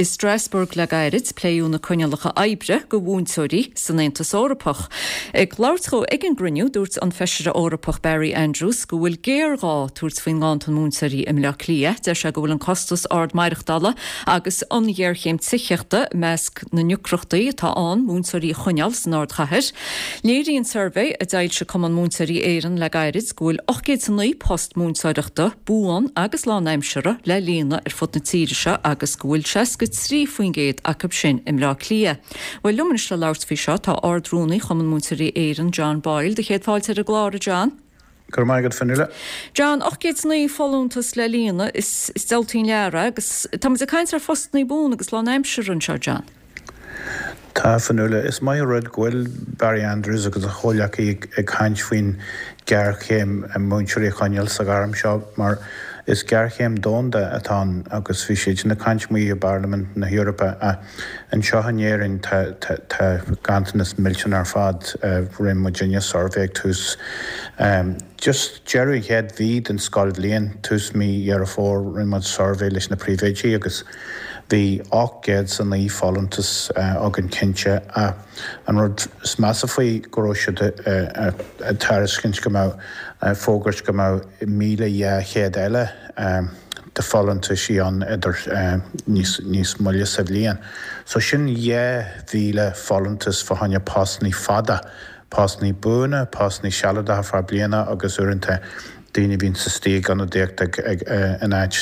I Strasbourg le gairid, pléadh na coinníollacha oibre do mhúinteoirí san Aontas Eorpach. Ag labhairt dhó ag an gcruinniú, dúirt an Feisire Eorpach Barry Andrews go bhfuil géarghá tabhairt faoin nganntan múinteoirí i mBleá Cliath. Deir sé go bhfuil an costas ard maireachtála agus an ghéarchéim tithíochta i measc na ndeacrachtaí atá ann múinteoirí a choinneáil san ardchathair. Léiríonn suirbhé a d'fhoilsigh Cumann Múinteoirí Éireann le gairid go bhfuil 809 post múinteoireachta, buan agus lánaimseartha, le líonadh ar fud na tíre seo agus go bhfuil 63% acu sin i mBleá Cliath. Bhuel, liom anois le labhairt faoi seo tá Ard-Rúnaí Chumann Múinteoirí Éireann, John Boyle. Do chéad fáilte ar an gclár, a John. Go raibh maith agat, Fionnuala. John, 809 folúntas le líonadh, is diabhaltaí an lear é agus tá muid ag caint ar phostannaí buan agus lánaimseartha anseo, John. Tá, Fionnuala. Is maith an rud go bhfuil Barry Andrews agus a chomhleacaí ag caint faoin ghéarchéim múinteoirí a choinneáil sa ghairm seo mar is géarchéim domhanda atá ann agus bhí siad sin ag caint amuigh i bParlaimint na hEorpa ach Anseo in Éirinn tá tá ganntanas millteanach ar fad. Rinne muidinne suirbhé ag tús just deireadh an chéad mhí den scoilbhliain, tús mí Dheireadh Fómhair, rinne muid suirbhé leis na príomhoidí agus bhí 809 folúntas againn cinnte ach an rud is measa faoi go raibh siad ag tairiscint go mbeadh, fógairt go mbeadh 1,200 eile de folúntaisí ann idir níos níos moille sa bhliain. So sin 2,000 folúntas fá choinne postannaí fada, postannaí buana, postannaí sealadacha feadh bliana agus uaireanta daoine a bhíonns istigh ag ionadaíocht ag ag in áit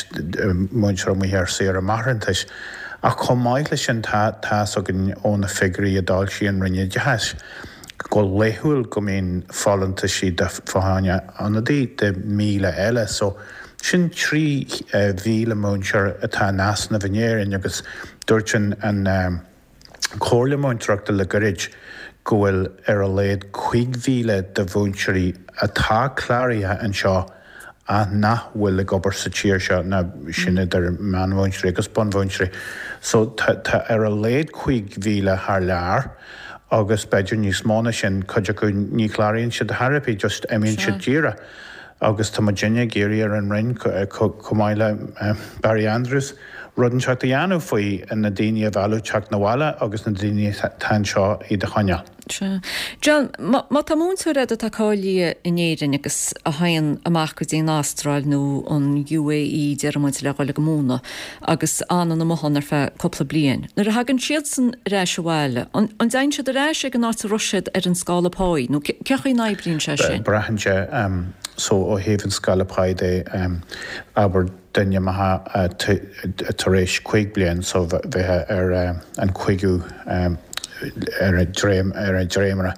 múinteoir amuigh ar saoire máithreachais. Ach chomh maith leis sin tá tá's againn ó na figiúirí a d'fhoilsigh an Roinn Oideachais go laethúil go mbíonn folúntaisí de fá choinne ionadaí de 1,000 eile. So Sin 3,000 múinteoir atá in easnamh in Éirinn agus dúirt an Chomhairle Múinteoireachta le gairid go bhfuil ar a laghad 5,000 de mhúinteoirí atá cláraithe anseo ach nach bhfuil ag obair sa tír seo, ná sin idir meánmhúinteoirí agus bunmhúinteoirí. So tá ar a laghad 5,000 thar lear agus b'fhéidir níos mó ná sin, cuid acu ní chláraíonn siad thar ar bith, just imíonn siad díreach. Agus tá muidinne ag iarraidh ar an Roinn, chomh maith le Barry Andrews, rud inteacht a dhéanamh faoi, na daoine a mhealladh teacht 'na bhaile agus na daoine atá anseo iad a choinneáil. Sea. John, má tá múinteoir agat atá cáilithe in Éirinn agus a théann amach go dtí an Astráil nó an UAE, déarfaidh muid, le dhul ag múineadh agus fhanann amuigh ann ar feadh cúpla bliain, nuair a thagann siadsan ar ais abhaile, an dtéann siad ar ais ag an áit a raibh siad ar an scála páí nó cén chaoi a n-oibríonn sé sin? Braitheann sé, so ó thaobh an scála páí de, abair duine maith tar éis 5 bliain so bheifeá ar an chúigiú ar an dréim ar an dréimire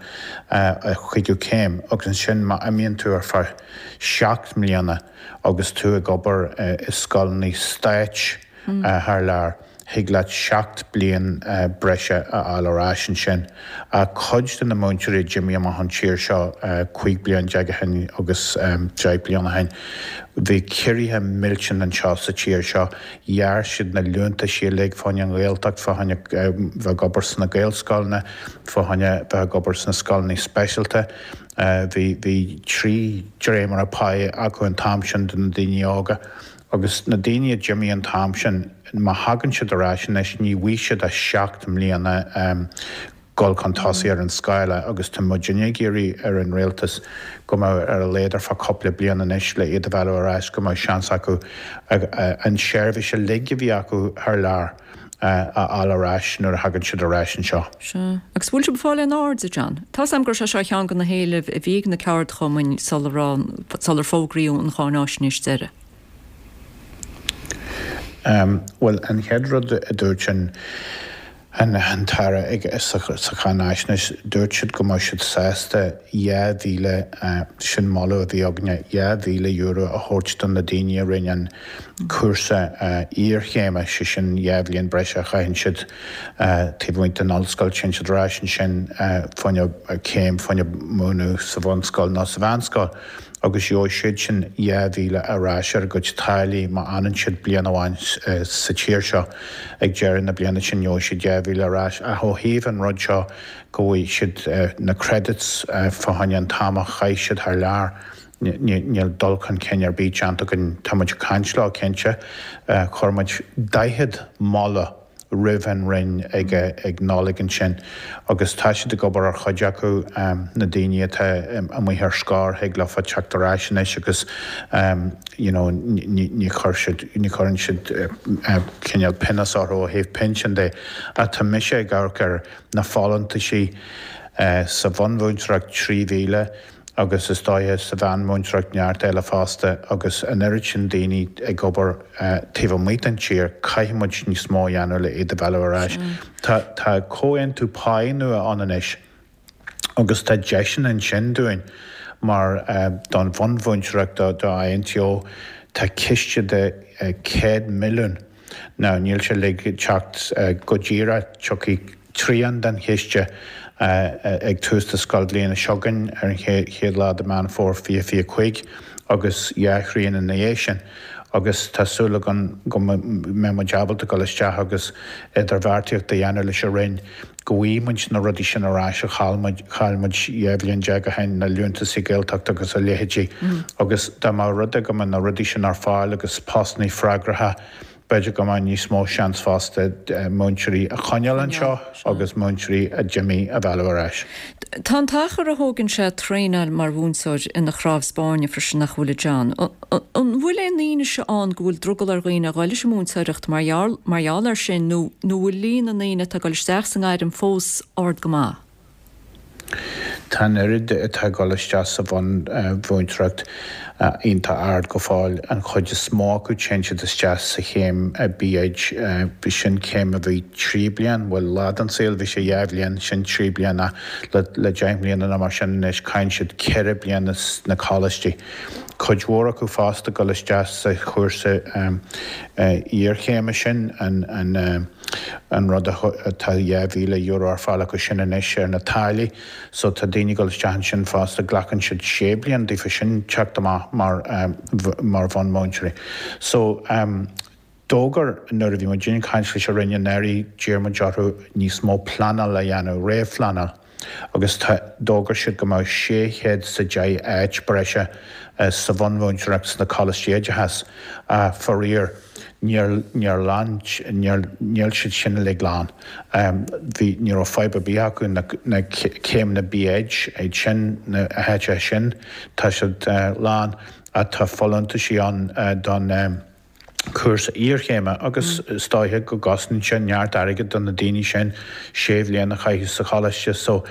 a chúigiú céim agus ansin má imíonn tú ar feadh 7 mbliana agus tú ag obair i scoileanna stáit thar lear. Thig leat 7 bliain breise a fháil ar ais ansin. Cuid de na múinteoirí a d'imigh amach ón tír seo 15 bliain ó shin agus 10 bliain ó shin, bhí ciorruithe millteanna anseo sa tír seo. Ghearr siad na liúntaisí uilig fá choinne an Ghaeltacht, fá choinne bheith ag obair sna Gaelscoileanna, fá choinne bheith ag obair sna scoileanna speisialta. Bhí bhí 3 dréimire páí acu an t-am sin do na daoine óga. Agus na daoine a d'imigh an t-am sin, má thagann siad ar ais anois, ní bhfaighidh siad ach 7 mbliana dul chun tosaigh ar an scála agus tá muidinne ag iarraidh ar an rialtas go mbeadh ar a laghad ar feadh cúpla bliain anois le iad a mhealladh ar ais go mbeadh seans acu an seirbhís uilig a bhí acu thar lear a fháil ar ais nuair a thagann siad ar ais anseo. Sea. Agus bhfuil sibh ag fáil aon aird, a John? Tá's agam gur sé seo ceann de na héilimh a bhí ag na ceardchumainn sula raibh, sular fógraíodh an cháináisnéis deiridh. Bhuel, an chéad rud a dúirt an an tAire ag sa cháináisnéis, dúirt siad go mbeadh siad sásta 2,000, sin moladh a bhí againne, €2,000 a thabhairt do na daoine a rinne an cúrsa iarchéime, sé sin 2 bhliain breise a chaitheann siad taobh amuigh den ollscoil, téann siad ar ais ansin fá choinne céim, fá choinne múineadh sa bhunscoil nó sa mheánscoil agus gheobhaidh siad sin 2,000 ar ais ar a gcuid táillí má fhanann siad bliain amháin sa tír seo. Ag deireadh na bliana sin gheobhaidh siad 2,000 ar ais. Ach ó thaobh an rud seo go bhfaighidh siad na credits fá choinne an t-am a chaith siad thar lear, Níl dul chun cinn ar bith déanta againn. Tá muid ag caint leo, cinnte. Chuir muid 40 moladh. roimh an Roinn ag ag Nollaig ansin agus tá siad ag obair ar chuid acu, na daoine atá amuigh ar scor, thig leofa teacht ar ais anois agus you know ní chuir siad, ní chuireann siad cineál pionós orthu ó thaobh pinsean de. Ach tá mise ag amharc ar na folúntaisí sa bhunmhúinteoireacht 3,000, agus is dóiche sa mheánmhúinteoireacht neart eile fosta agus an oiread sin daoine ag obair taobh amuigh den tír, caithfidh muid níos mó a dhéanamh le iad a mhealladh ar ais. Tá tá comhaontú páí nua ann anois agus tá deiseanna ansin dúinn mar don bhunmhúinteoireacht do do INTO tá ciste de 100 milliún Now níl sé uilig ag teacht go díreach, tiocfaidh trian den chiste ag tús na scoilbhliana seo chugainn ar an chéad lá de Meán Fómhair 2025 agus dhá thrian ina dhiaidh sin. Agus tá súil againn go mbeidh muid ábalta dul isteach agus idirbheartaíocht a dhéanamh leis an Roinn go bhfaighidh muid na rudaí sin ar ais a chaill muid, chaill muid 12 bhliain ó shin, na liúntasaí Gaeltachta agus a leithéidí. Agus dá mba rud é go mbeadh na rudaí sin ar fáil agus postannaí freagracha, b'fhéidir go mbeadh níos mó seans fosta múinteoirí a choinneáil anseo agus múinteoirí a d'imigh a mhealladh ar ais. Tá an t-achar a thógann sé traenáil mar mhúinteoir ina chnámh spáirne freisin nach bhfuil a John? An bhfuil aon fhianaise ann go bhfuil drogall ar dhaoine a dhul leis an múinteoireacht mar gheall mar gheall air sin nó nó bhfuil líon na ndaoine atá ag dul isteach sa ngairm fós ard go maith? Tá an oiread atá ag dul isteach sa bhunmhúinteoireacht iontach ard go fóill. An chuid is mó acu téann siad isteach sa chéim B.Ed. Sin céim a bhí 3 bliain, bhuel lá den saol bhí sé 2 bhliain, sin 3 bliana le le 10 mbliana nó mar sin anois caitheann siad 4 bliana sna coláistí. Cuid mhór acu fosta ag dul isteach sa chúrsa iarchéime sin, an an rud atá €2,000 ar fáil acu sin anois ar na táillí so tá daoine ag dul isteach ansin fosta, glacann siad sé bliana daofa sin teacht amach mar mar bhunmhúinteoirí. So d'fhógair nuair a bhí muid ag caint leis an Roinn anuraidh d'iarr muid orthu níos mó pleanáil a dhéanamh, réamhphleanáil. agus tá, d'fhógair siad go mbeadh 610 áit breise sa bhunmhúinteoireacht sna coláistí oideachais. Faraor, níor, níor lán, níor, níl siad sin uilig lán. Bhí, ní raibh fadhb ar bith acu na, na céimeanna B.Ed, iad sin, na háiteacha sin, tá siad lán ach tá folúntaisí ann don, cúrsa iarchéime agus is dóiche go gcosnaíonn sé neart airgid do na daoine sin sé bhliain a chaitheamh sa choláiste so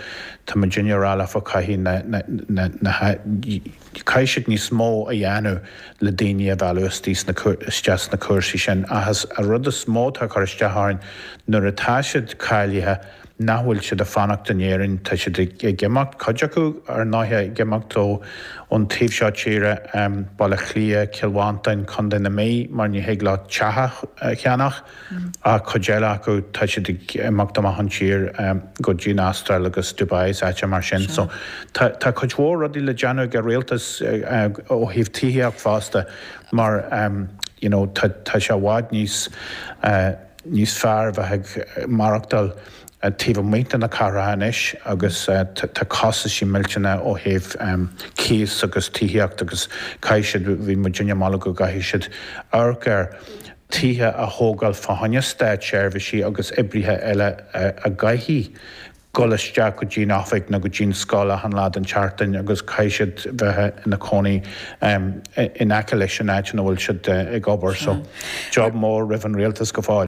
tá muidinne ag rá leofa caithfidh na na na na caithfidh siad níos mó a dhéanamh le daoine a mhealladh istigh sna isteach sna cúrsaí sin ach is an rud is mó atá ag cur isteach orainn nuair atá siad cáilithe nach bhfuil siad ag fanacht in Éirinn, tá siad ag imeacht, cuid acu ar ndóighe ag imeacht ó ón taobh seo tíre, Baile Átha Cliath, Cill Mhantáin, Contae na Mí, mar ní thig leo teach a cheannach, ach cuid eile acu tá siad ag imeacht amach ón tír go dtí an Astráil agus Dubai is áiteacha mar sin. So tá tá cuid mhór rudaí le déanamh ag an rialtas ó thaobh tithíocht fosta mar you know tá tá sé i bhfad níos níos fearr a bheith ag maireachtáil taobh amuigh de na cathracha anois agus tá costaisí millteanna ó thaobh cíos agus tithíocht agus caithfidh siad, bhí muidinne ag moladh go gcaithfidh siad amharc ar tithe a thógáil fá choinne státseirbhísigh agus oibrithe eile a gcaithfidh dul isteach go dtí an oifig nó go dtí an scoil achan lá den tseachtain agus caithfidh siad bheith ina cónaí in aice leis an áit ina bhfuil siad ag obair. So, job mór roimh an rialtas go fóill.